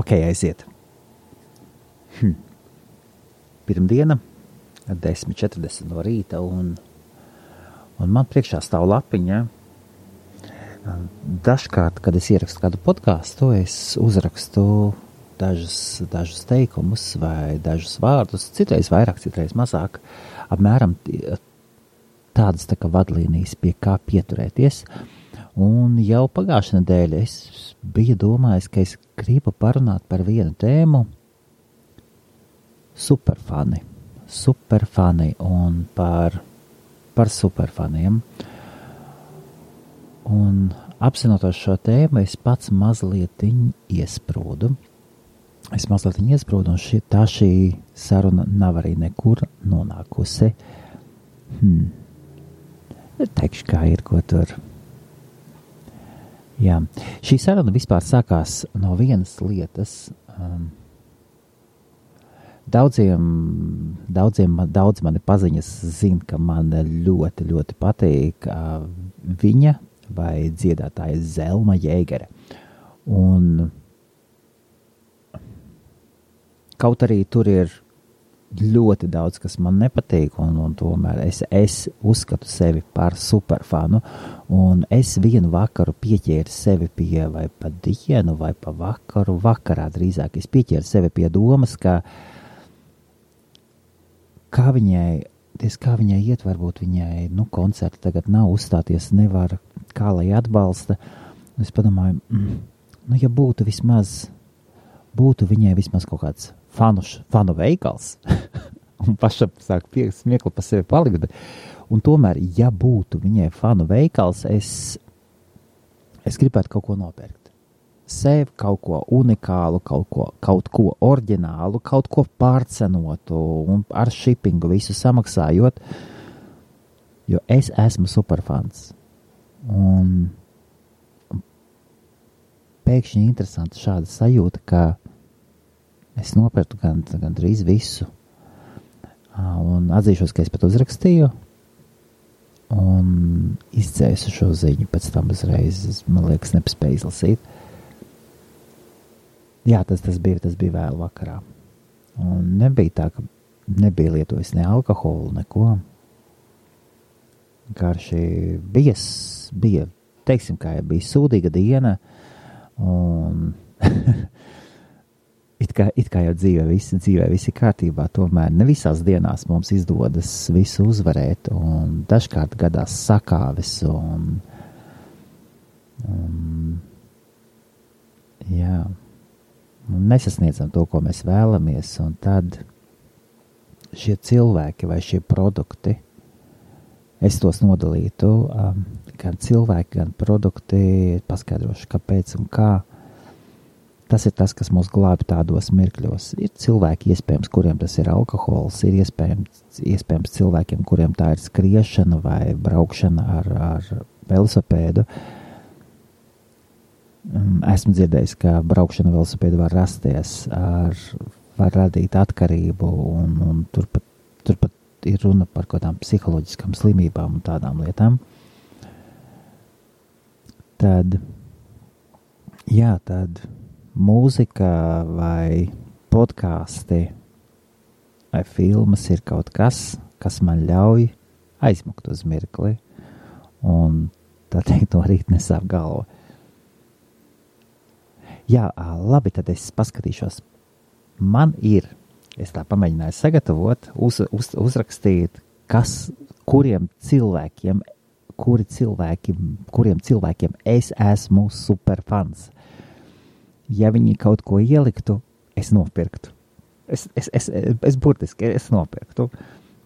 Ok, aiziet. Pirmdiena, 10:40 no rīta, un man priekšā stāv lapiņa. Dažkārt, kad es ierakstu kādu podcastu, es uzrakstu dažus teikumus vai dažus vārdus, citreiz vairāk, citreiz mazāk, apmēram tādas tā kā vadlīnijas, pie kā pieturēties. Un jau pagājušā nedēļa es biju domājis, ka es gribu parunāt par vienu tēmu superfani un par superfaniem. Un apzinoties šo tēmu, es pats mazliet iesprūdu. Un šī saruna nav arī nekur nonākusi. Teikšu, kā ir, ko tur. Jā, šī saruna vispār sākās no vienas lietas. Daudz mani paziņas zina, ka man ļoti, ļoti patīk viņa vai dziedātāja Zelma Jēgere. Un kaut arī tur ir ļoti daudz, kas man nepatīk, un tomēr es uzskatu sevi par superfanu, un es vienu vakaru pieķēru sevi pie, vai pa dienu, vai pa vakarā drīzāk, es pieķēru sevi pie domas, kā viņai iet, varbūt viņai, koncerti tagad nav, uzstāties nevar, kā lai atbalsta. Un es padomāju, ja būtu viņai vismaz kaut kāds fanu veikals, un pašam sāk smiekli pa sevi palikt, un tomēr, ja būtu viņai fanu veikals, es gribētu kaut ko nopirkt. Sev kaut ko unikālu, kaut ko oriģinālu, kaut ko pārcenotu un ar shippingu visu samaksājot, jo es esmu superfans. Un pēkšņi interesanti šāda sajūta, ka es nopirktu gandrīz visu. Un atzīšos, ka es pat uzrakstīju un izdzēsu šo ziņu, pēc tam uzreiz, man liekas, nepaspēju izlasīt. Jā, tas bija vēl vakarā. Un nebija tā, ka nebija lietojis ne alkoholu, neko. Garši bija, teiksim, kā jau bija sūdīga diena, un it kā jau dzīvē visi kārtībā, tomēr ne visās dienās mums izdodas visu uzvarēt, un dažkārt gadās sakāves, un jā, un nesasniedzam to, ko mēs vēlamies, un tad šie cilvēki vai šie produkti, es tos nodalītu, gan cilvēki, gan produkti, paskaidrošu, kāpēc un kā. Tas ir tas, kas mūs glābi tādos mirkļos. Ir cilvēki, iespējams, kuriem tas ir alkohols, ir iespējams cilvēkiem, kuriem tā ir skriešana vai braukšana ar velosipēdu. Esmu dzirdējis, ka braukšana velosipēdu var rasties, var radīt atkarību, un turpat ir runa par kādām psiholoģiskām slimībām un tādām lietām. Tad mūzika vai podkāsti vai filmas ir kaut kas, kas man ļauj aizmukt uz mirkli, un tā teikt, no rīta nesāp galva. Jā, labi, tad es paskatīšos. Man ir, es tā pamēģināju sagatavot, uzrakstīt, kuriem cilvēkiem es esmu superfans. Ja viņi kaut ko ieliktu, es nopirktu. Es burtiski nopirktu.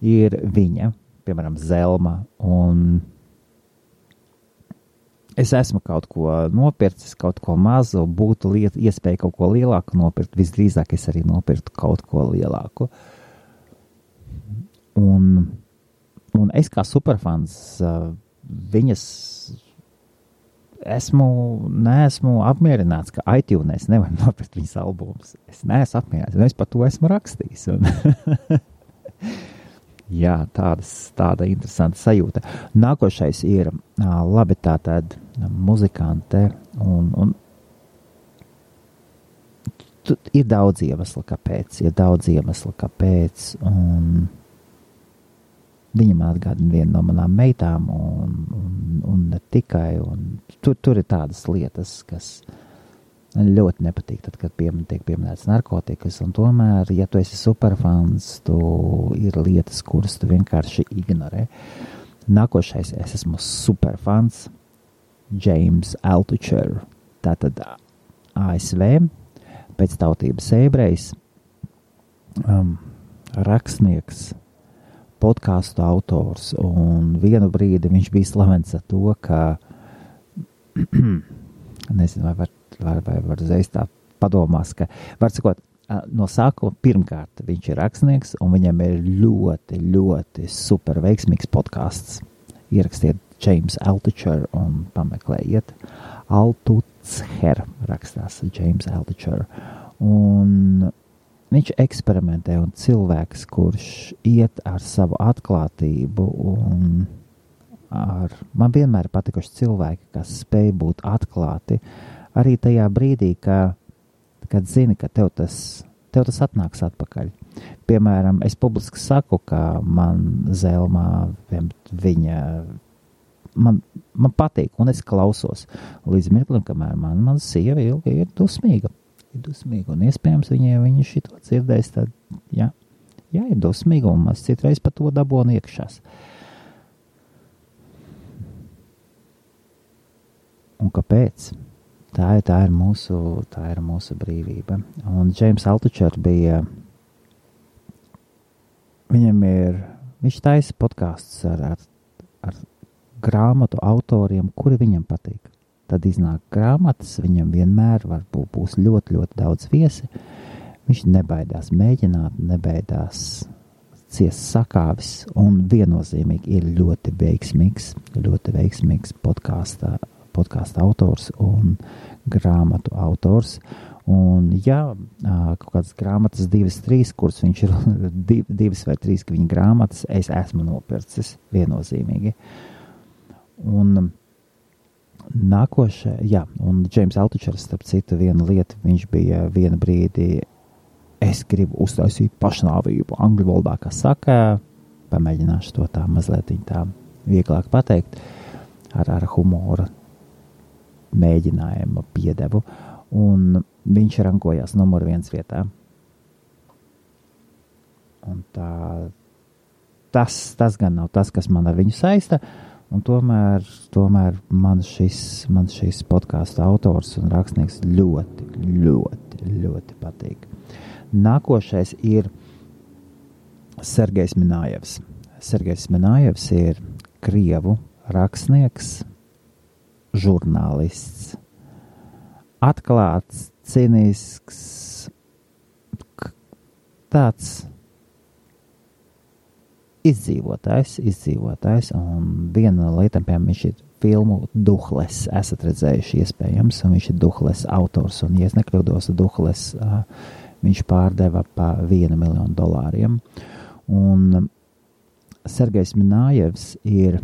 Ir viņa, piemēram, Zelma, un es esmu kaut ko nopircis, kaut ko mazu, būtu iespēja kaut ko lielāku nopirkt, visdrīzāk es arī nopirktu kaut ko lielāku. Un es kā superfans viņas neesmu apmierināts, ka iTunes nevar nopirkt viņas albumus. Es neesmu apmierināts, un es par to esmu rakstījis. Jā, tāda interesanta sajūta. Nākošais ir, labi, tātad muzikante, un Ir daudz iemeslu, kāpēc, un viņa man atgādina vienu no manām meitām, un ne tikai, un tur ir tādas lietas, kas ļoti nepatīk, tad, kad tiek pieminēts narkotikas, un tomēr, ja tu esi superfans, ir lietas, kuras tu vienkārši ignorē. Nākošais, es esmu superfans, James Altucher, tātad ASV, pēc tautības ebrejs, rakstnieks, podkāstu autors, un vienu brīdi viņš bija slavens ar to, ka nezinu, vai var uzreiz tā padomās, ka var sakot, no sākuma pirmkārt viņš ir rakstnieks, un viņam ir ļoti, ļoti super veiksmīgs podkāsts. Ierakstiet James Altucher un pameklējiet. Altucher rakstās James Altucher. Un viņš eksperimentē, un cilvēks, kurš iet ar savu atklātību, un man vienmēr patikuši cilvēki, kas spēj būt atklāti, arī tajā brīdī, kad zini, ka tev tas atnāks atpakaļ. Piemēram, es publiski saku, ka man Zelmā man patīk, un es klausos līdz mirklim, kamēr man sieva ir dusmīga. Un iespējams viņa šito dzirdēs, tad, jā, ir dusmīga, un mēs citreiz pa to dabonu iekšās. Un kāpēc? Tā ir mūsu brīvība. Un James Altucher viņš taisa podkāstus ar grāmatu autoriem, kuri viņam patīk. Tad iznāk grāmatas, viņam vienmēr būs ļoti, ļoti daudz viesi. Viņš nebaidās mēģināt, nebaidās ciest sakāvis, un viennozīmīgi ir ļoti veiksmīgs podkāsta autors un grāmatu autors. Un jā, kaut kādas grāmatas 2-3, kuras viņš ir 2 vai 3 viņa grāmatas, es esmu nopircis viennozīmīgi. Un nākošais, jā, un James Altuchers, starp citu, viena lieta, viņš bija vienu brīdi, es gribu uztaisīt pašnāvību angļu valodā, kā saka, pamēģināšu to tā mazliet tā vieglāk pateikt, ar humora mēģinājumu piedevu, un viņš rankojās numur 1 vietā. Un tas gan nav tas, kas man ar viņu saista, un tomēr man šis podkāstu autors un rakstnieks ļoti, ļoti, ļoti patīk. Nākošais ir Sergejs Minājevs. Sergejs Minājevs ir krievu rakstnieks, žurnālists, atklāts, cinisks, tāds izdzīvotājs, un viena no lietām, piemēram, viņš ir filmu Duhles, esat redzējuši iespējams, un viņš ir Duhles autors, un, ja es nekļūdos, Duhles viņš pārdeva pa $1 miljonu. Un Sergejs Minājevs ir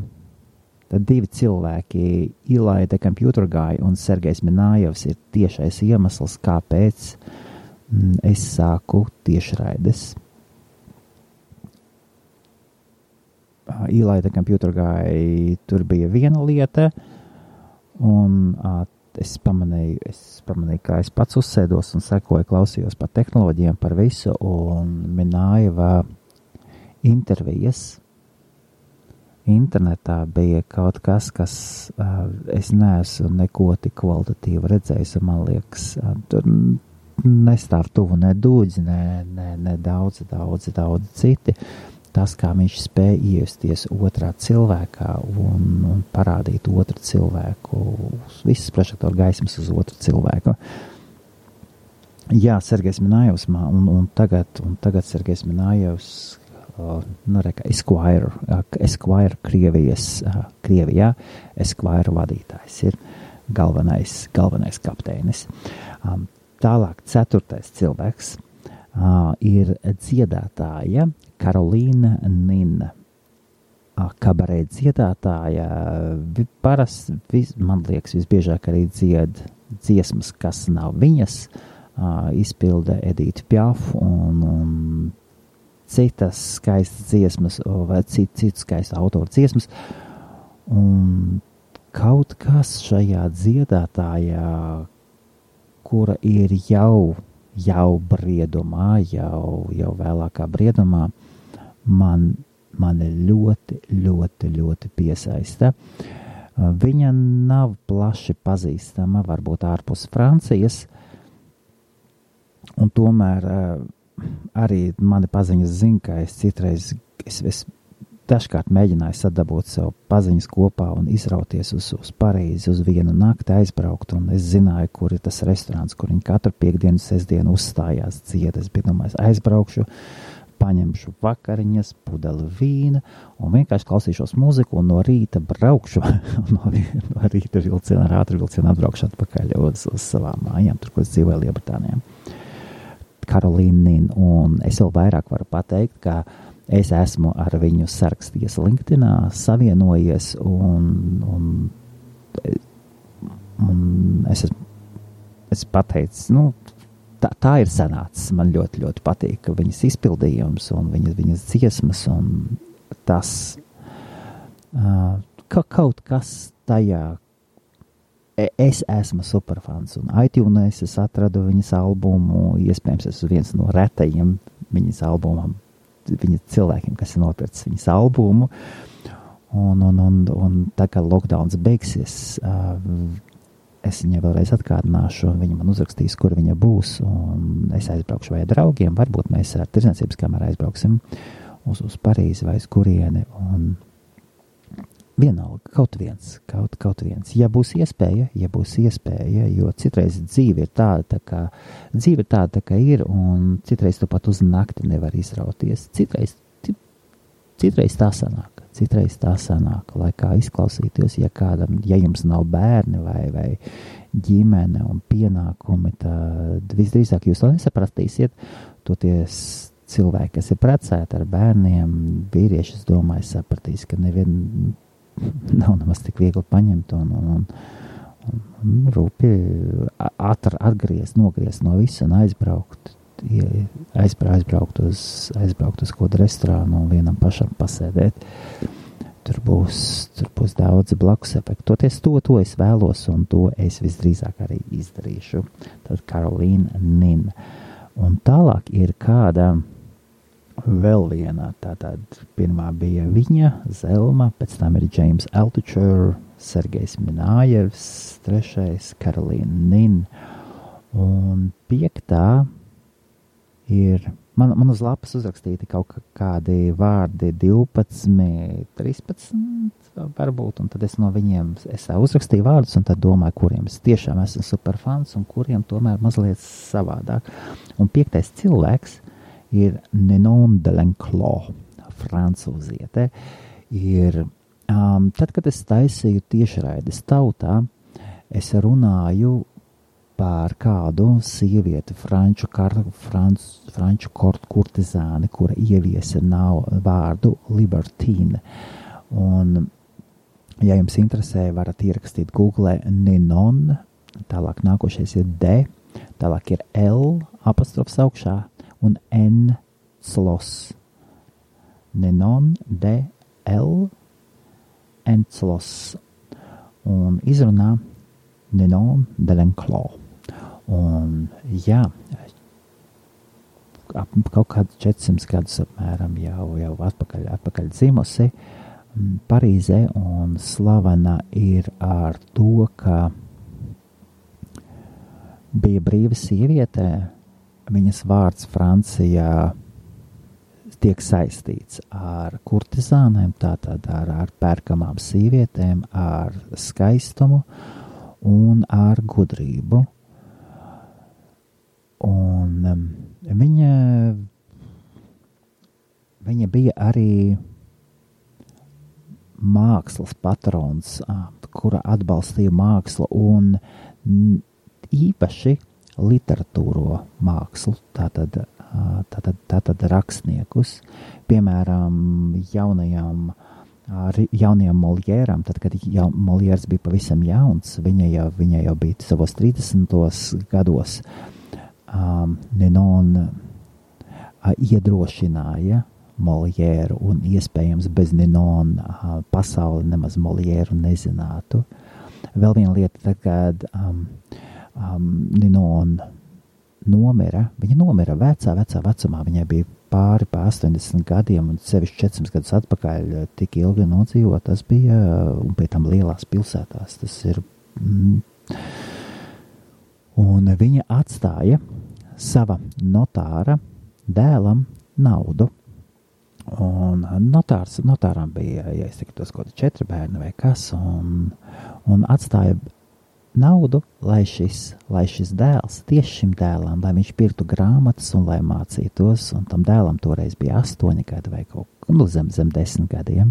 tad 2 cilvēki, Eli the Computer Guy un Sergejs Minājevs ir tiešais iemesls, kāpēc es sāku tiešraides. Eli the Computer Guy, tur bija viena lieta, un es pamanīju, kā es pats uzsēdos un sekoju, klausījos par tehnoloģijām, par visu, un Minājeva intervijas internetā bija kaut kas, es neesmu neko tik kvalitatīvi redzējis, un man liekas, tur nestāv tuvu ne dūdzi, ne daudzi citi. Tas, kā viņš spēja iejusties otrā cilvēkā un parādīt otru cilvēku, visas prožektoru gaismas uz otru cilvēku. Jā, Sergejs Minājevs, un tagad Sergejs Minājevs, Esquire Krievijā, Esquire vadītājs ir galvenais kapteinis. Tālāk 4. cilvēks ir dziedātāja Karolīna Nina. Kabarē dziedātāja parasti, man liekas, visbiežāk arī dzied dziesmas, kas nav viņas, izpilda Edita Piaf un citas skaistas dziesmas vai citu skaistu autoru dziesmas. Un kaut kas šajā dziedātājā, kura ir jau briedumā, jau vēlākā briedumā, mani ļoti piesaista. Viņa nav plaši pazīstama, varbūt ārpus Francijas, un tomēr arī mani paziņas zina, ka es citreiz dažkārt mēģināju sadabūt sev paziņas kopā un izrauties uz Parīzi, uz vienu nakti aizbraukt, un es zināju, kur ir tas restorāns, kur viņi katru piekdienu, sestdienu uzstājās dzied. Es biju domājis, aizbraukšu, paņemšu vakariņas, pudeli vīna un vienkārši klausīšos mūziku un no rīta braukšu, no rīta vilcienā, ar ātru vilcienu atbraukšu atpakaļ uz savām mājām, tur, kur es dzīvoju Lielbritānijā. Karolīna Nin, un es vēl vairāk varu pateikt, ka es esmu ar viņu sarakstījies LinkedInā, savienojies, un es pateicu, tā ir sanācis. Man ļoti patīk viņas izpildījums un viņas dziesmas, un tas kaut kas tajā. Es esmu superfans, un iTunes es atradu viņas albumu, iespējams, es viens no retajiem viņas albumam, viņas cilvēkiem, kas ir nopircis viņas albumu, un tā kā lockdowns beigsies, es viņai vēlreiz atgādināšu, viņa man uzrakstīs, kur viņa būs, un es aizbraukšu vai draugiem, varbūt mēs ar tirdzniecības kameru aizbrauksim uz Parīzi vai uz kurieni, un vienalga, kaut viens. Ja būs iespēja, jo citreiz dzīve ir tāda, kā ir, un citreiz tu pat uz nakti nevar izrauties. Citreiz tā sanāk, lai kā izklausīties, ja jums nav bērni vai ģimene un pienākumi, tad visdrīzāk jūs to nesapratīsiet. Toties cilvēki, kas ir precēti ar bērniem, vīrieši, es domāju, sapratīs, ka nav nemaz tik viegli paņemt un rūpi nogriezt no visu un aizbraukt uz kādu restorānu un vienam pašam pasēdēt. Tur būs daudz blakus efektu. Toties to es vēlos, un to es visdrīzāk arī izdarīšu. Tad Karolīna Nin. Un tālāk ir kāda vēl viena, tātad pirmā bija viņa, Zelma, pēc tam ir James Altucher, Sergejs Minājevs, trešais Karolīna Nin, un piektā ir, man uz lapas uzrakstīti kaut kādi vārdi 12, 13 varbūt, un tad es no viņiem, es uzrakstīju vārdus, un tad domāju, kuriem es tiešām esmu superfans, un kuriem tomēr mazliet savādāk. Un piektais cilvēks ir Ninon de Lenclos, francūziete. Tad, kad es taisīju tiešraides tautā, es runāju par kādu sievieti, franču kurtizāni, kura ieviesa vārdu libertine. Un, ja jums interesē, varat ierakstīt Google Ninon, tālāk nākošais ir D, tālāk ir L, apostrofs augšā, un N Slos. Ninon de L N Slos. Un izrunā Ninon de Lenclos. Un jā, kaut kāds 400 gadus apmēram jau atpakaļ dzimusi Parīzē, un slavena ir ar to, ka bija brīva sieviete. Viņas vārds Francijā tiek saistīts ar kurtizānēm, tātad ar pērkamām sievietēm, ar skaistumu un ar gudrību. Un viņa bija arī mākslas patrons, kura atbalstīja mākslu un īpaši literatūro mākslu, tātad rakstniekus, piemēram, jaunajam Moljēram, tad, kad Moljērs bija pavisam jauns, viņa jau bija savos 30. gados, Ninon iedrošināja Moliēru, un iespējams bez Ninon pasauli nemaz Moliēru nezinātu. Vēl viena lieta, tad, kad Ninon nomira, viņa nomira vecā vecumā, viņai bija pāri 80 gadiem, un sevišķi 400 gadus atpakaļ tik ilgi nodzīvot, tas bija, un pie tam lielās pilsētās, tas ir, un viņa atstāja sava notāra dēlam naudu, un notāram bija, ja es teiktu, tos kaut 4 bērni vai kas, un atstāja naudu, lai šis dēls, tieši šim dēlam, lai viņš pirktu grāmatas un lai mācītos, un tam dēlam toreiz bija 8 gadi vai zem 10 gadiem,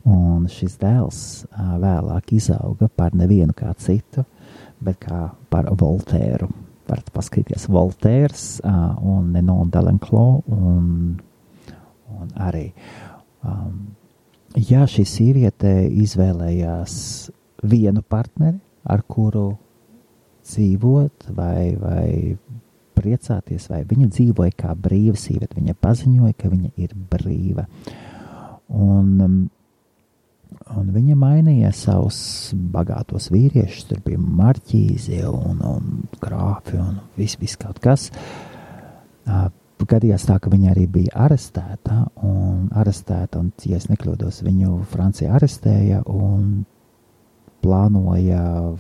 un šis dēls vēlāk izauga par nevienu kā citu, bet kā par Voltēru. Varat paskatīties Voltērs un Ninon de L'Enclos, un arī, šī sieviete izvēlējās vienu partneri, ar kuru dzīvot vai priecāties, vai viņa dzīvoja kā brīva sieviete. Viņa paziņoja, ka viņa ir brīva. Un viņa mainīja savus bagātos vīriešus, tur bija marķīzi un grāfi un viss kaut kas. Gadījās tā, ka viņa arī bija arestēta, un ja es nekļūdos, viņu Francija arestēja un plānoja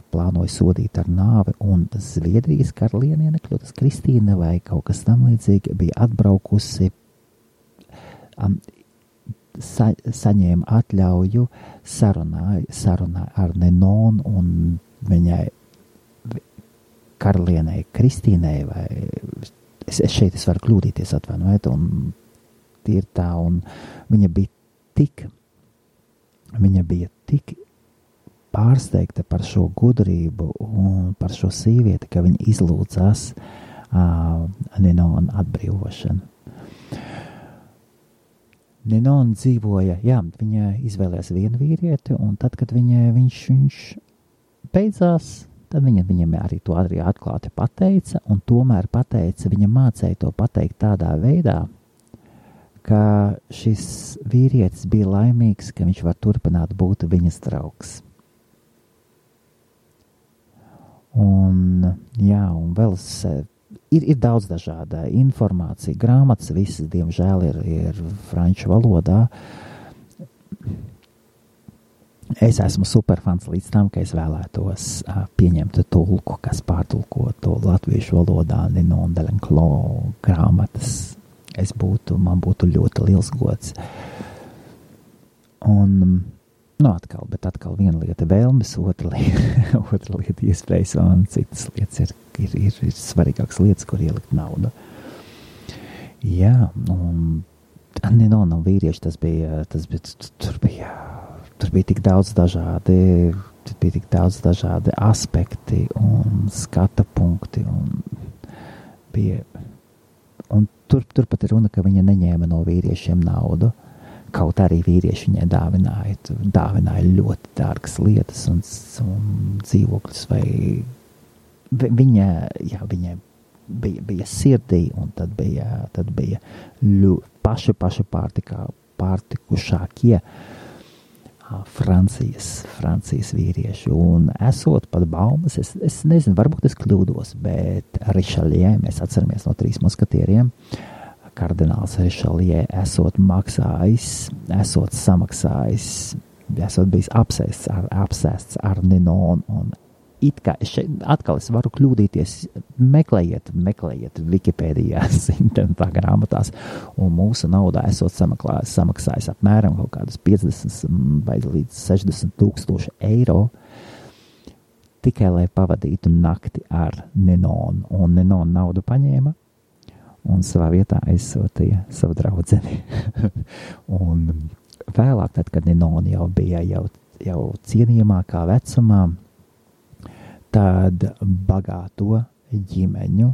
sodīt ar nāvi, un Zviedrijas karaliene, nekļūtas Kristīne vai kaut kas tam līdzīgi, bija atbraukusi, saņēma atļauju sarunā ar Ninon, un viņai karalienei Kristīnei, vai es varu kļūdīties, atvainojiet, un tie ir tā, un viņa bija tik pārsteigta par šo gudrību un par šo sievieti, ka viņa izlūdzās Ninon atbrīvošanu. Ninon dzīvoja, viņa izvēlējās vienu vīrieti, un tad, kad viņš beidzās, tad viņam arī to arī atklāti pateica, un tomēr viņa mācēja to pateikt tādā veidā, ka šis vīrietis bija laimīgs, ka viņš var turpināt būt viņas draugs. Un vēl ir daudz dažāda informācija, grāmatas visas, diemžēl, ir franču valodā. Es esmu superfans līdz tam, ka es vēlētos pieņemt tulku, kas pārtulko to latviešu valodā, Ninon de L'Enclos grāmatas. Man būtu ļoti liels gods. Un atkal viena lieta vēlmes, otra lieta iespējas, un citas lietas ir svarīgākas lietas, kur ielikt naudu. Un Ninon un vīrieši, tur bija tik daudz dažādi aspekti un skata punkti, un turpat ir runa, ka viņa neņēma no vīriešiem naudu. Kaut arī vīrieši viņai dāvināja ļoti dārgas lietas un dzīvokļus, vai viņa bija sirdī, un tad bija paši pārtikušākie Francijas vīrieši, un esot pat baumas, es nezinu, varbūt es kļūdos, bet Richelieu, mēs atceramies no 3 muskatieriem, kardināls Richelieu esot samaksājis, esot bijis apsēsts ar Ninon, un it kā atkal es varu kļūdīties, meklējiet Wikipēdijās, internetā grāmatās, un mūsu naudā esot samaksājis apmēram kaut kādus 50 vai līdz 60 000 eiro, tikai lai pavadītu nakti ar Ninon, un Ninon naudu paņēma, un savā vietā aizsūtīja savu draudzeni. Un vēlāk, tad, kad Ninon jau bija jau cienījamākā vecumā, tad bagāto ģimeņu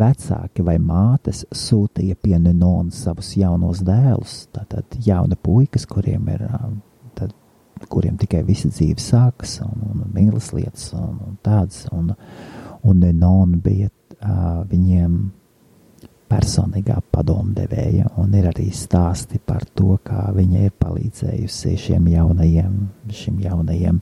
vecāki vai mātes sūtīja pie Ninon savus jaunos dēlus, tātad jauni puikas, kuriem tikai visa dzīve sākas, un mīlas lietas, un tādas, un Nenon bija viņiem personīgā padomdevēja, un ir arī stāsti par to, kā viņa ir palīdzējusi šim jaunajiem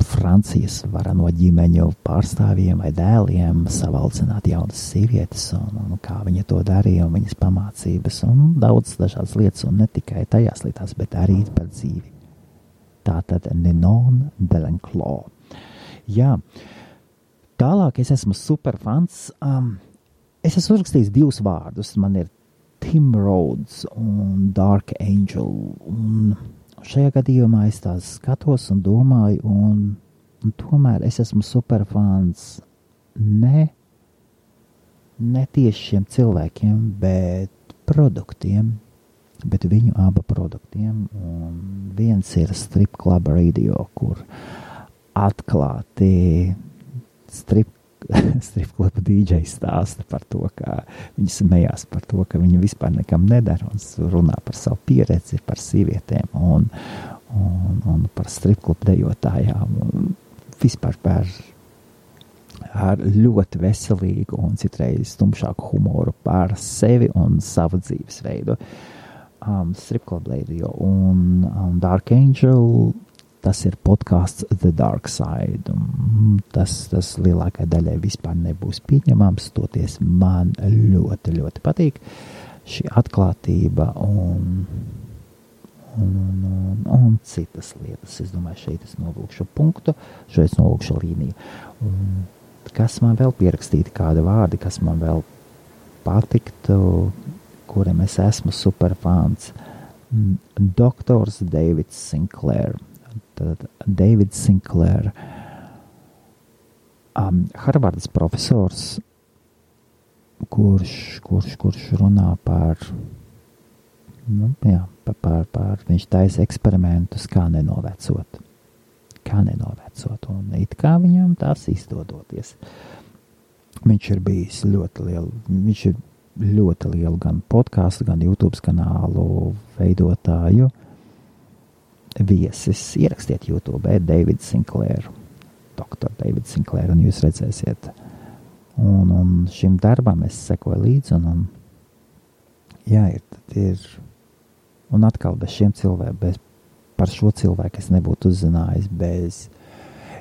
Francijas varano ģimeņu pārstāvjiem vai dēliem savaldzināt jaunas sievietes, un kā viņa to darīja, un viņas pamācības, un daudz dažādas lietas, un ne tikai tajās lietās, bet arī par dzīvi. Tātad Ninon de l'Enclos. Jā, tālāk es esmu superfans. Es esmu uzrakstījis 2 vārdus. Man ir Tim Rhodes un Dark Angel, un šajā gadījumā es tās skatos un domāju, un tomēr es esmu superfans ne tieši šiem cilvēkiem, bet produktiem, bet viņu abu produktiem. Un viens ir Strip Club Radio, kur atklāti strip kluba DJ stāsta par to, ka viņi smējās par to, ka viņi vispār nekam nedara, un runā par savu pieredzi, par sievietēm un par strip klubu dejotājām, un vispār ar ļoti veselīgu un citreiz tumšāku humoru par sevi un savu dzīvesveidu. Strip Club Radio un Dark Angel, tas ir podcasts The Dark Side. Tas lielākai daļai vispār nebūs pieņemams, toties man ļoti, ļoti patīk šī atklātība un citas lietas. Es domāju, šeit es novilkšu punktu, šeit es novilkšu līniju. Un kas man vēl pierakstīti, kādi vārdi, kas man vēl patiktu, kuriem es esmu superfans? Doktors Davids Sinclair. Tad Davids Sinclair, Harvardas profesors, kurš runā par viņš taisa eksperimentus, kā nenovecot, un it kā viņam tās izdodoties. Viņš ir bijis ļoti lielu gan podcastu, gan YouTube kanālu veidotāju viesis. Ierakstiet YouTube, David Sinclair, Dr. David Sinclair, un jūs redzēsiet. Un šim darbam es sekoju līdzi, un un atkal bez šiem cilvēkiem, par šo cilvēku es nebūtu uzzinājis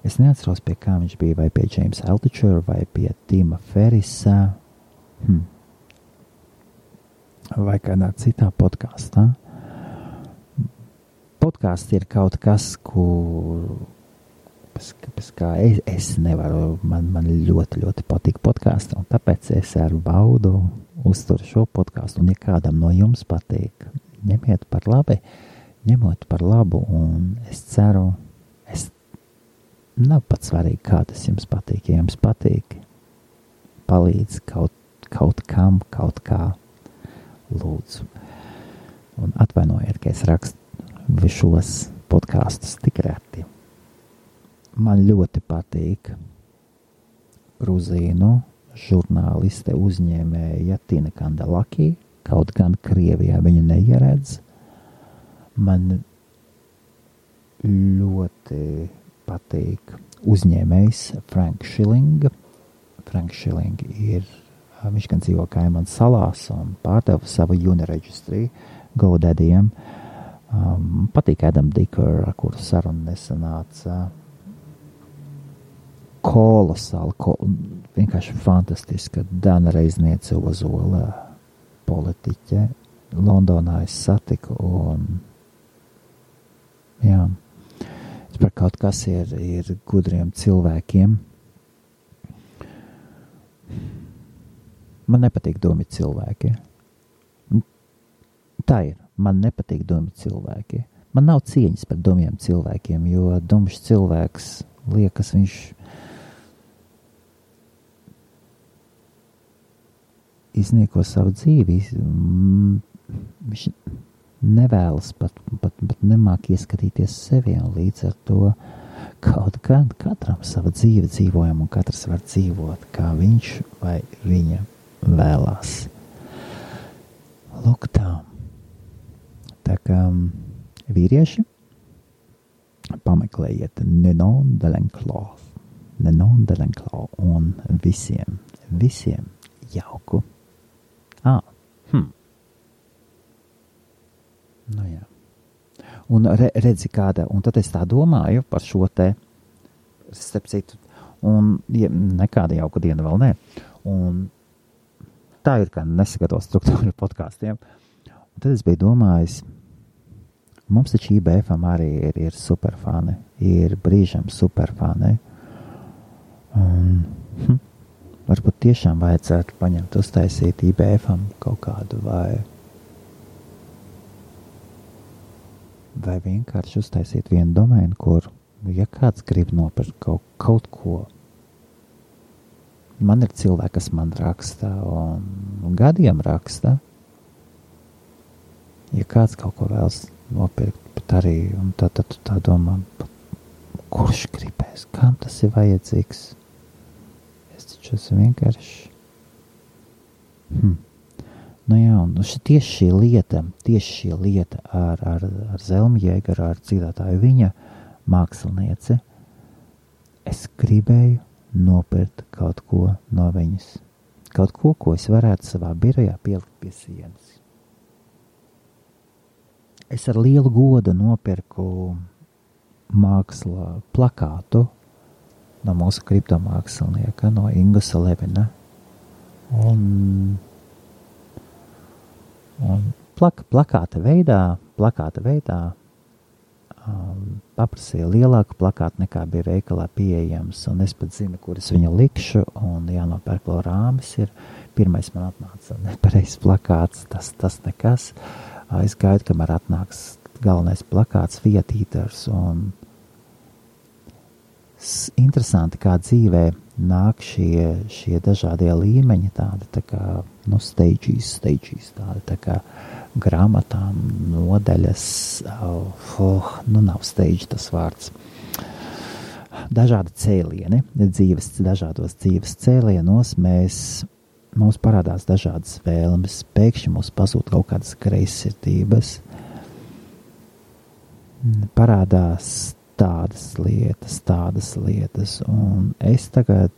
es neatceros, pie kā viņš bija, vai pie James Altucher, vai pie Tima Ferrisa, vai kādā citā podkāstā. Podkāsts ir kaut kas, pēc kā es nevaru, man ļoti, ļoti patīk podkāsti, un tāpēc es ar baudu uzturu šo podkāstu, un ja kādam no jums patīk, ņemiet par labu, un es ceru, nav pat svarīgi, kā tas jums patīk, ja jums patīk, palīdz kaut kam, kaut kā, lūdzu. Un atvainojiet, ka es rakstu šos podkāstus tik reti. Man ļoti patīk gruzīnu žurnāliste uzņēmēja Tina Kandelaki, kaut gan Krievijā viņu neieredz. Man ļoti patīk uzņēmējs Frank Schilling. Frank Schilling viņš gan dzīvo Kaimanu salās un pārdeva savu Uniregistry GoDaddy'iem. Patīk Adam Dicker, ar kuru sarunu nesanāca. Kolosāli, vienkārši fantastiska Dana Reizniece Ozola politiķe. Londonā es satiku un par kaut kas ir gudriem cilvēkiem. Man nepatīk dumi cilvēki. Tā ir. Man nepatīk dumi cilvēki. Man nav cieņas par dumiem cilvēkiem, jo dumšs cilvēks liekas, viņš iznieko savu dzīvi. Viņš nevēlas pat nemāk ieskatīties sevi, un līdz ar to kaut gan katram sava dzīve dzīvojam, un katrs var dzīvot, kā viņš vai viņa vēlās. Lūk tā. Tā kā vīrieši, pameklējiet Ninon de l'Enclos. Nenonderenklau un visiem jauku. Nu jā. Un redzi kāda, un tad es tā domāju par šo te, starp citu, un nekāda jauka diena vēl nē. Un tā ir kā nesagatavo struktūra podkāstiem. Un tad es biju domājis, mums taču IBFam arī ir superfani, ir brīžam superfani. Un varbūt tiešām vajadzētu paņemt, uztaisīt IBFam kaut kādu vai vienkārši uztaisīt vienu domēnu, kur, ja kāds grib nopirkt kaut ko, man ir cilvēki, kas man raksta un gadiem raksta, ja kāds kaut ko vēlas nopirkt, bet arī, un tad tu tā domā, kurš gribēs, kam tas ir vajadzīgs? Es taču esmu vienkārši. Nu jā, un tieši šī lieta ar Zelmu Jēgaru, ar dziedātāju viņa mākslinieci, es gribēju nopirkt kaut ko no viņas. Kaut ko, ko es varētu savā birojā pielikt pie sienas. Es ar lielu godu nopirku māksla plakātu no mūsu kriptomākslinieka, no Ingusa Levina. Un plakāta veidā paprasīja lielāku plakātu nekā bija veikalā pieejams, un es pat zinu, kur es viņu likšu, un jānopērk vēl rāmis ir. Pirmais man atnāca nepareizs plakāts, tas nekas. Es gaidu, kamēr atnāks galvenais plakāts, vietītars, un interesanti, kā dzīvē nāk šie dažādie līmeņi, tādi tā kā, stages, tādi tā kā grāmatām, nodaļas, nav stage tas vārds. Dažādi cēlieni, dažādos dzīves cēlienos mums parādās dažādas vēlmes, pēkšņi mums pazūd kaut kādas greizsirdības, parādās tādas lietas, un es tagad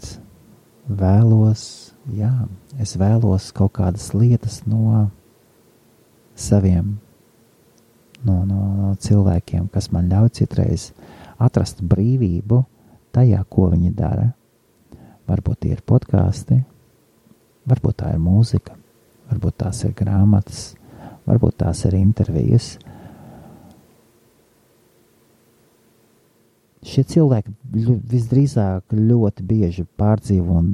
vēlos kaut kādas lietas no saviem, no cilvēkiem, kas man ļauj citreiz atrast brīvību tajā, ko viņi dara. Varbūt tie ir podkāsti, varbūt tā ir mūzika, varbūt tās ir grāmatas, varbūt tās ir intervijas. Šie cilvēki visdrīzāk ļoti bieži pārdzīvo un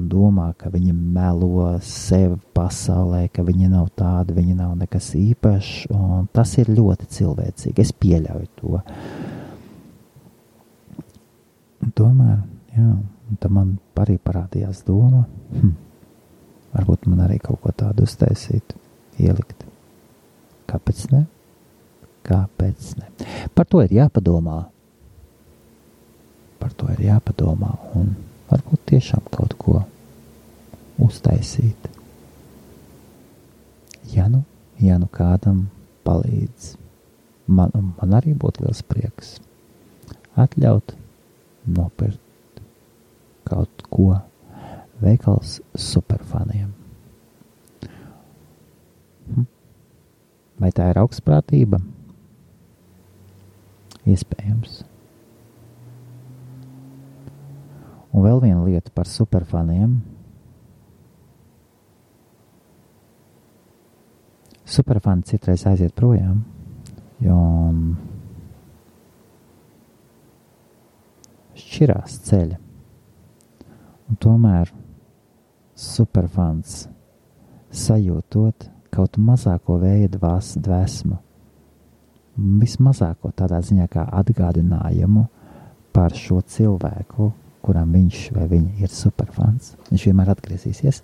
domā, ka viņi melo sevi pasaulē, ka viņi nav tādi, viņi nav nekas īpašs, un tas ir ļoti cilvēcīgi. Es pieļauju to. Tomēr, tad man arī parādījās doma, varbūt man arī kaut ko tādu uztaisīt, ielikt. Kāpēc ne? Par to ir jāpadomā. Un varbūt tiešām kaut ko uztaisīt. Ja nu kādam palīdz, man arī būtu liels prieks atļaut nopirkt kaut ko veikals superfaniem. Vai tā ir augstprātība? Iespējams. Un vēl viena lieta par superfaniem. Superfani citreiz aiziet projām, jo šķirās ceļa. Un tomēr superfans sajūtot kaut mazāko vēja dvēsmu, vismazāko tādā ziņā kā atgādinājumu par šo cilvēku, kuram viņš vai viņa ir superfans. Viņš vienmēr atgriezīsies.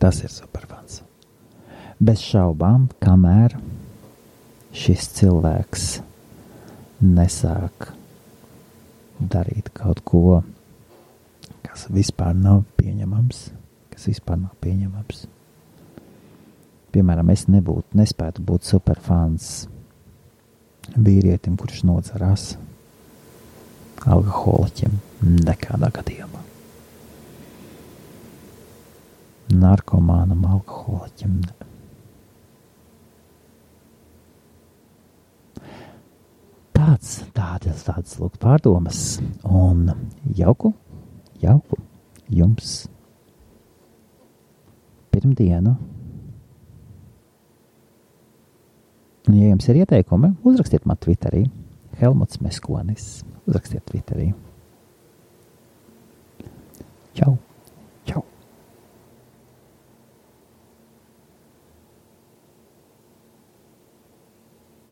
Tas ir superfans. Bez šaubām, kamēr šis cilvēks nesāk darīt kaut ko, kas vispār nav pieņemams. Piemēram, es nespētu būt superfans vīrietim, kurš nodzerās. alkoholiķim nekādā gadījumā. Narkomānam, alkoholiķim. Tādas lūk pārdomas. Un jauku jums pirmdienu. Un, ja jums ir ieteikumi, uzrakstiet man Twitterī. Helmuts Meskonis. Uzrakstiet Twitterī.